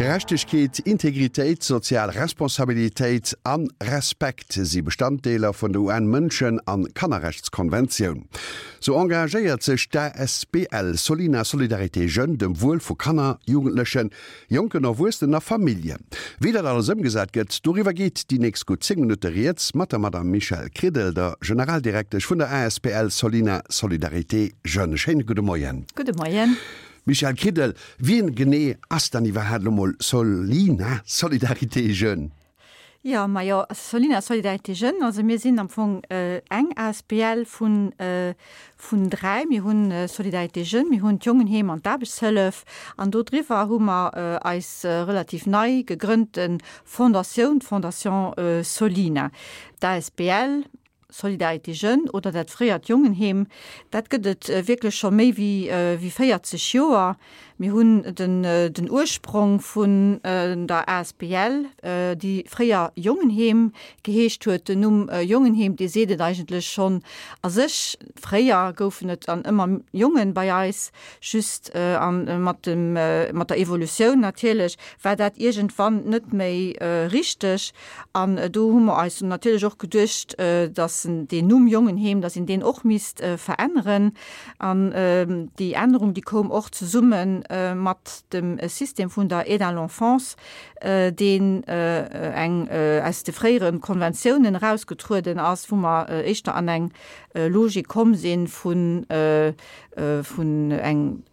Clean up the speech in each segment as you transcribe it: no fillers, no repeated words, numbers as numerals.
Gerechtegkeet, Integritéit, sozial Responsabilitéit an Respekt si Bestanddeeler vun der UN-Mënschen an Kannerrechtskonventioun. Sou engagéiert sech d'ASBL Solina Solidarité Jeunes dem Wuel vu Kanner, Jugendlechen, Jonken Erwuessenen a Familljen. Wéi dat alles ëmgesat gëtt, doriwwer geet déi nächst gutt 10 Minutte rieds mat der Madame Michèle Kridel, der Generaldirektesch vun der asbl Solina Solidarité Jeunes. Schéine gudde Moien. Gudde Moien. Michèle Kridel, Wien genee ass dann iwwerhaapt elo mol Solina Solidarité Jeunes? Jo, majo, Solina Solidarité Jeunes, also mir sinn am Fong eng asbl vun vun 3. Mir hunn Solidarité Jeunes, mir hunn d'Jongenheem an d'Aarbechtshëllef an do driwwer hu mer eis relativ nei gegrënnte Fondatioun, d'Fondation Solina. D'asbl Solidarité Jeunes oder dat fréiert Jongenheem, dat gëtt et wierklech scho méi wéi 40 Joer. Mir hunn den Ursprong vun der asbl, déi fréier Jongenheem geheescht huet. Den Numm Jongenheem, dee seet et eigentlech schonn a sech. Fréier goufen et dann ëmmer Jongen bei eis, just mat dem mat der Evolutioun natierlech war dat iergendwann net méi richteg. An do hu mer eis natierlech och geduecht, dass deen Numm Jongenheem, dass een deen och misst veränneren. An déi Ännerung, déi koum och zesumme mat dem System vun der Aide à l'enfance, deen eng aus de fréiere Konventiounen erausgetrueden ass, wou mer éischter an eng Logik komm si vun vun eng,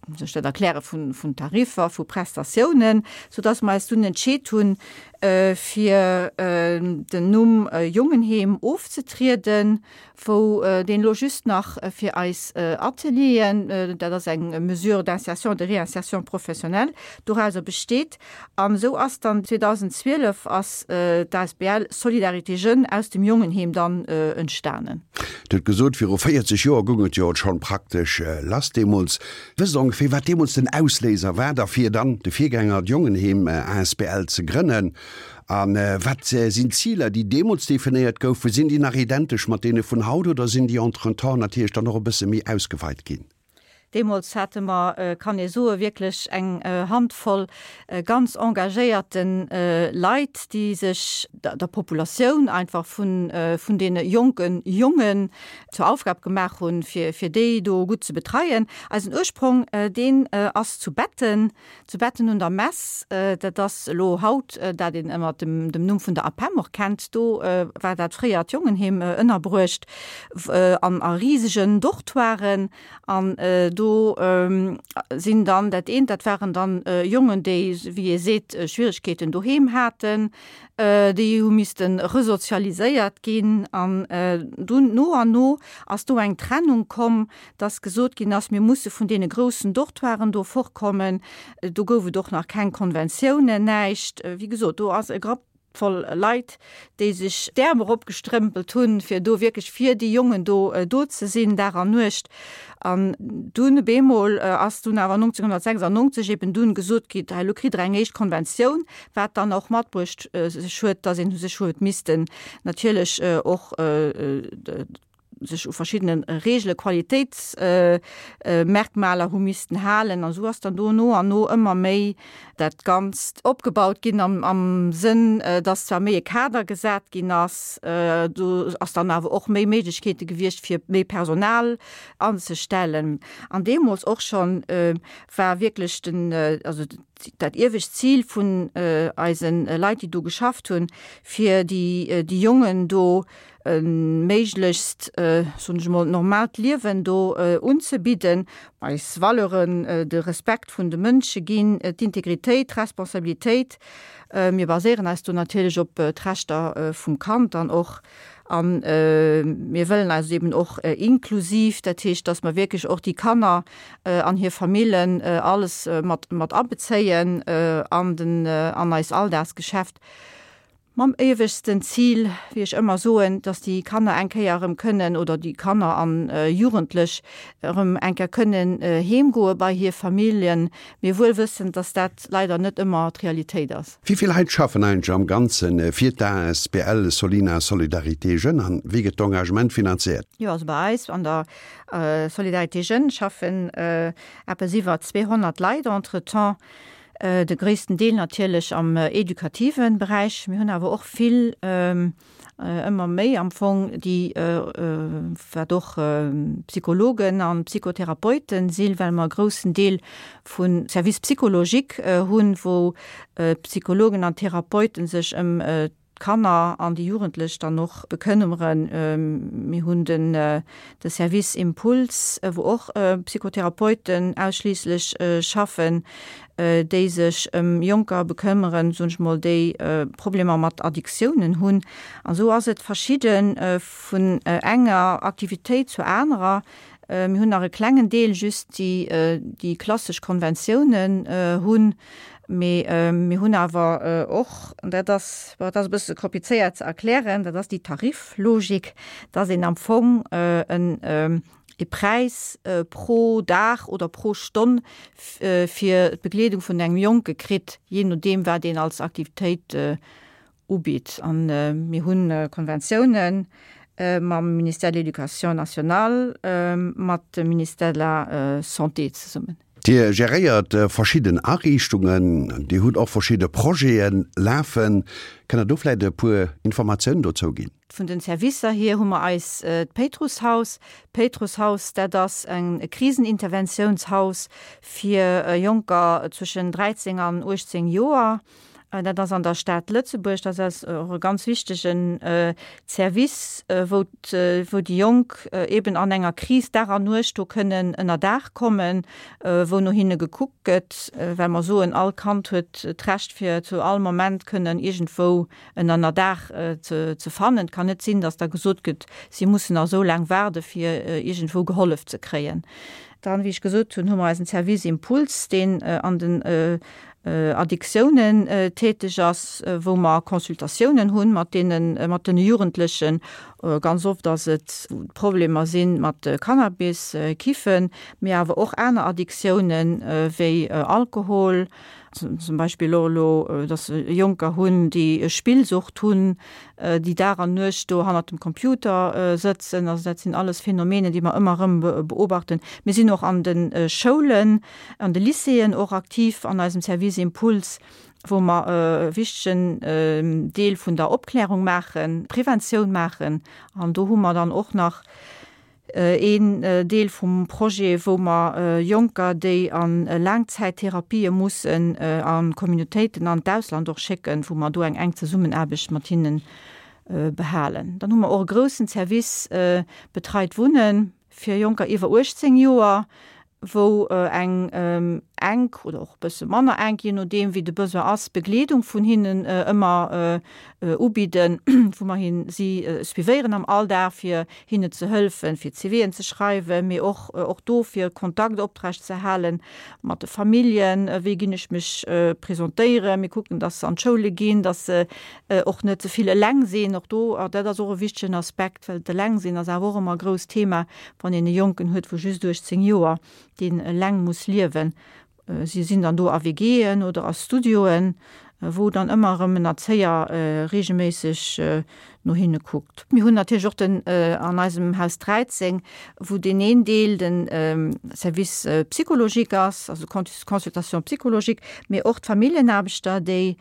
wéi soll ech dat erklären, vun, vun Tariffer, vu Prestatiounen, soudass mer eis dunn entscheet hunn, fir den Numm Jongenheem ofzetrieden, wou deen elo just nach fir eis Atelieren, dat ass eng Mesure d'insertion, de réinsertion professionnelle, dorauser besteet. An esou ass dann 2012 ass d'asbl Solidarité Jeunes aus dem Jongenheem dann entstanen. Dir hutt gesot, viru 40 Joer goung et jo schonn praktesch lass deemools. Wësst Der ongeféier, wat deemools den Ausléiser war derfir, dann de Virgänger, d'Jongenheem asbl ze grënnen? A wat sinn d'Ziler, déi deemools definéiert goufen? Sinn déi nach identesch mat deene vun haut oder sinn déi entretemps natierlech dann och e bësse méi ausgeweit ginn? Deemools hate mer, kann ee soen, wierklech eng Handvoll ganz engagéierte Leit, déi sech der Populatioun einfach vun deene jonke Jongen zur Aufgab gemaach hunn, fir déi do gutt ze betreien. Eisen Ursprong, deen ass zu Betten, zu Betten un der Mess. Dat ass elo haut dat een ënner dem Numm vun der APEM och kennt. Do war dat fréiert Jongenheem ënnerbruecht an a risegen Dortoiren. An do sinn dann dat eent, dat waren dann Jongen, déi, wéi ee seet, Schwieregkeeten doheem haten, déi hu misste resozialiséiert ginn. An dunn no an no ass do eng Trennung komm, dass gesot ginn ass, mir musse vun deene groussen Dortoiren do fortkommen. Do gouf et och nach keng Konventiounen, näischt. Wéi gesot, do ass e Grapp voll Leit, déi sech d'Äerm eropgestrëmpelt hunn, fir do wierklech fir déi Jongen do do ze sinn, Dag an Nuecht. An dunn op eemol ass dunn awer 1996 eben dunn gesot gi, hei elo kritt Der eng éischt Konventioun, wat dann och matbruecht sech huet, dass een sech huet missten natierlech och sech u verschiddene Reegele, Qualitéitsmerkmaler hu missten halen. An esou ass dann do no an no ëmmer méi dat Ganzt opgebaut ginn am Sënn, dass zwar méi e Kader gesat ginn ass, do ass dann awer och méi Méiglechkeete gewiescht, fir méi Personal anzestellen. An deemools och schonn war wierklech den, also dat iewescht Zil vun eise Leit, déi do geschafft hunn, fir déi Jongen do e méiglechst, soen ech emol, normaalt Liewen do unzebidden, eis Valeuren, de Respekt vun de Mënsche ginn, d'Integritéit, d'Responsabilitéit. Mir baséieren eis do natierlech op d'Rechter vum Kand dann och a mir wëllen eis eben och inklusiv, dat heescht, dass mer wierklech och déi Kanner an hir Famillen alles mat mat abezéien an den an eis Alldagsgeschäft. Mam éiwegsten Zil, wéi ech ëmmer soen, dass déi Kanner eng Kéier erëm kënnen, oder déi Kanner an Jugendlech erëm eng Kéier kënnen heemgoe bei hir Familljen, mee wuel wëssend, dass dat leider net ëmmer d'Realitéit ass. Wéi vill Leit schaffen eigentlech am Ganze fir d'ASBL Solina Solidarité Jeunes an wéi gëtt d'Engagement finanziert? Jo, also bei eis an der Solidarité Jeunes schaffen eppes iwwer 200 Leit entretemps. De gréissten Deel natierlech am edukative Beräich. Mir hunn awer och vill, ëmmer méi am Fong, déi, wat och Psychologen a Psychotherapeuten sinn, well mer e groussen Deel vu Service psychologique hunn, wou d'Psychologen an Therapeute sech ëm d'Kanner an déi Jugendlech dann och bekënneren. Mir hunn den de Service Impuls, wou och Psychotherapeuten ausschliisslech schaffen, déi sech ëm Jonker bekëmmeren, soen ech mol, déi Problemer mat Addiktiounen hunn. An esou ass et verschidde vun enger Aktivitéit zur anerer. Mir hunn nach e klengen Deel just, déi déi klassesch Konventiounen hunn. Mee mir hunn awer och, an dat ass, bon, dat ass e bësse komplizéiert ze erklären, dat ass déi Tariflogik, dass een am Fong en e Präis pro Dag oder pro Stonn fir d'Begleedung vun engem Jonke kritt, jee nodeem wat een als Aktivitéit ubitt. A mir hu Konventiounen mam Ministère de l'Éducation nationale, mat dem Ministère de la Santé zesummen. Dir geréiert verschidden Ariichtungen, Dir hutt och verschidde Projete lafen. Kënnt Der do vläicht e puer Informatiounen dozou ginn? Vun den Servicer hier hu mer eis d'Péitrusshaus. D'Péitrusshaus, dat ass e Kriseninterventiounshaus fir Jonker zwëschen 13 an 18 Joer. Dat ass an der Stad Lëtzebuerg. Dat ass och e ganz wichtegen Service, wou wou déi Jonk eeben an enger Kris Dag an Nuecht do kënnen ënner Daach kommen, wou no hinne gekuckt gëtt, well mer soen, all Kand huet d'Recht fir zu all Moment kënnen iergendwou en Ënnerdaach ze fannen. Et kann net sinn, datt da gesot gëtt, si mussen nach esou laang waarde fir iergendwou gehollef ze kréien. Dann, wéi ech gesot hunn, hu mer eisen Service Impuls, deen an den Addiktiounen täteg ass, wou mer Consultatiounen hunn mat deenen, mat den Jugendlechen. Ganz oft ass et, wou Problemer si mat Cannabis, Kiffen, mee awer och aner Addiktiounen wéi Alkohol, zum Beispill och elo, dass se Jonker hunn, déi Spillsucht hunn, déi Dag an Nuecht do hannert dem Computer sëtzen. Also dat sinn alles Phänomenen, déi mer ëmmer erëm beobachten. Mir sinn och an de Schoulen, an de Lycéeën och aktiv an eisem Service Impuls, wou mer e wichtegen Deel vun der Opklärung maachen, Preventioun maachen. An do hu mer dann och nach Een Deel vum Projet, wou mer Jonker, déi a Laangzäittherapië mussen, a Communautéiten an d'Ausland och schécken, wou mer do eng enk Zesummenaarbecht mat hinne behalen. Dann hu mer och e groussen Service Betreit Wunnen fir Jonker iwwer 18 Joer, wou eng enk oder och e bësse manner enk, jee nodeem wéi de Besoin ass, Begleedung vun hinnen ëmmer ubidden, wou mer hin si suivéieren am Alldag, fir hinne ze hëlfen, fir CVen ze schreiwen, mee och och do fir Kontakt oprecht ze hale mat de Familljen, wéi ginn ech mech presentéieren. Mir kucken, dass se an d'Schoule ginn, dass se och net ze vill eleng sinn. Och do, dat ass och e wichtegen Aspekt, well d'Elengsinn ass awer och ëmmer e grousst Thema, Wann een e Jonken huet vu just 18 Joer, deen eleng muss liewen, si sinn dann do a WGen oder a Studioen, wou dann ëmmer erëm en Erzéier reegelméisseg no hinne kuckt. Mir hunn natierlech och den an eisem Haus 13, wou deen een Deel de Service psychologique ass, also Consultation psychologique, mee och d'Familljenaarbechter, déi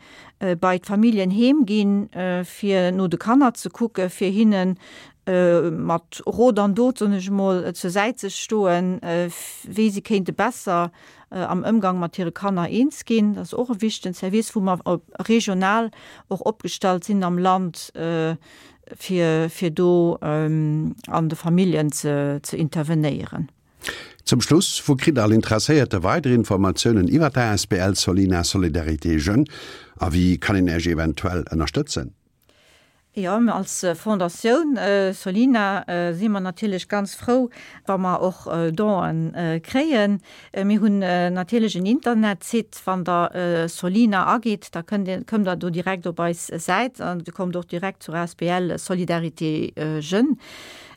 bei d'Familljen heem ginn, fir no de Kanner ze kucken, fir hinnen mat Rot an Dot, soen ech emol, zur Säit ze stoen, wéi si kéinte besser am Ëmgang mat hire Kanner eens ginn. Dat ass och e wichtegen Service, wou mer regional och opgestallt sinn am Land, fir, fir do an de Familljen ze, ze intervenéieren. Zum Schluss, Wou kritt all Interesséierte weider Informatiounen iwwer d'ASBL Solina Solidarité Jeunes a wéi kann een Iech eventuell ënnerstëtzen? Jo, mir als Fondatioun Solina si mer natierlech ganz frou, wa mer och Donen kréien. Mir hunn natierlech en Internetsite, wann der Solina agitt, da kënnt Dir, kommt der do direkt op eis Säit an Dir kommt och direkt zur asbl Solidarité Jeunes.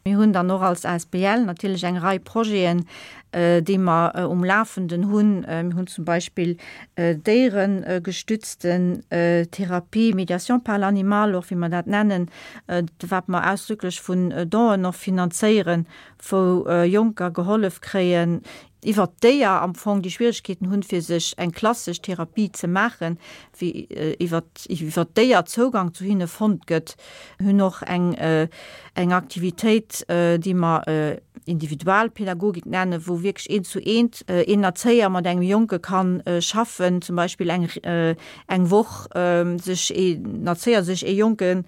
Mir hunn dann och als asbl natierlech eng Rei Projeten. déi mer um Lafenden hunn. Mir hunn zum Beispill déieregestützten Therapie, Médiation par l'animal och, wéi mer dat nennen, wat mer ausdrücklech vun Donen och finanzéieren, wou Jonker gehollef kréien, iwwert d'Déier am Fong, déi Schwierigkeeten hunn, fir sech eng klassesch Therapie ze maachen, wéi iwwert iwwert d'Déier Zougang zu hinne fonnt gëtt. Mir hunn och eng eng Aktivitéit, déi mer Individualpädagogik nennen, wou wierklech eent zu eent een Erzéier mat engem Jonke kann schaffen, zum Beispill eng eng Woch sech een Erzéier sech ee Jonke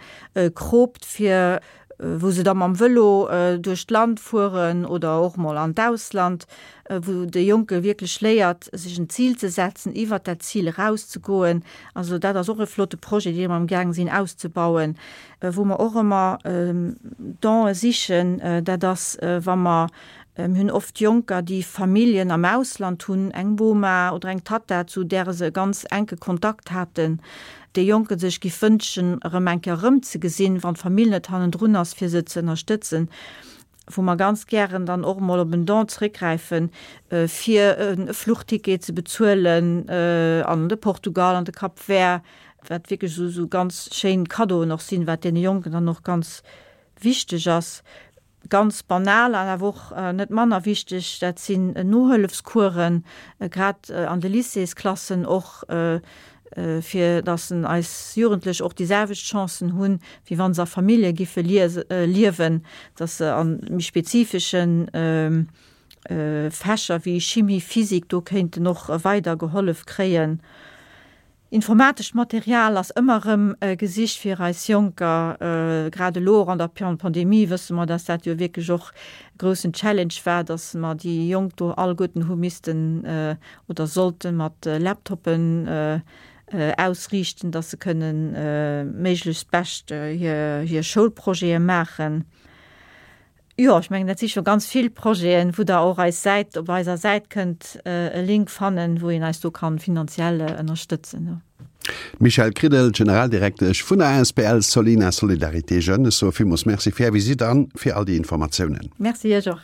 kroopt, fir wou se da mam Vëlo duerch d'Land fueren oder och mol an d'Ausland, wou de Jonke wierklech léiert, sech en Zil ze setzen, iwwert dat Zil erauszegoen. Also dat ass och e flotte Projet, dee mer amgaang sinn auszebauen. Wou mer och ëmmer Donë sichen, dat ass, wa mer, mir hunn oft Jonker, déi Familljen am Ausland hunn, eng Boma oder eng Tatta, zu där se e ganz enke Kontakt haten, dee Jonke sech giff wënschen, erëm eng Kéier erëmzegesinn, wann d'Famill net hannendrun ass, fir se ze ënnerstëtzen, wou mer ganz gären dann och emol op en Don zréckgräifen, fir e Fluchticket ze bezuelen an de Portugal, an de Cap Vert, wat wierklech esou ganz schéin Cadeauen och sinn, wat deene Jonken dann och ganz wichteg ass. Ganz banal an awer och net manner wichteg, dat sinn Nohëllefscoursen, grad an de Lycéesklassen och, fir datt eis Jugendlech och déi selwecht Chancen hunn, wéi wa se a Famillje giffe liewen, datt se a méi spezifesche Fächer wéi Chimie, Physik do kéinten och weider gehollef kréien. Informatescht Material ass ëmmer erëm gesicht fir eis Jonker. Grad elo och an der Pandemie wësse mer, dass dat jo wierklech och e groussen Challenge war, dass mer déi Jonk do alleguerten hu missten oder sollte mat Laptoppen ausriichten, dass se kënnen méiglechst bescht hir Schoulprojete maachen. Jo, ech mengen, dat si scho ganz vill Projeten, wou Der och eis Säit, op eiser Säit kënnt e Link fannen, wou een eis do kann finanziell ënnerstëtzen. D'Michèle Kridel, Generaldirektesch vun der asbl Solina Solidarité Jeunes, ech soe villmools Merci fir Är Visitt an fir all déi Informatiounen. Merci Iech och.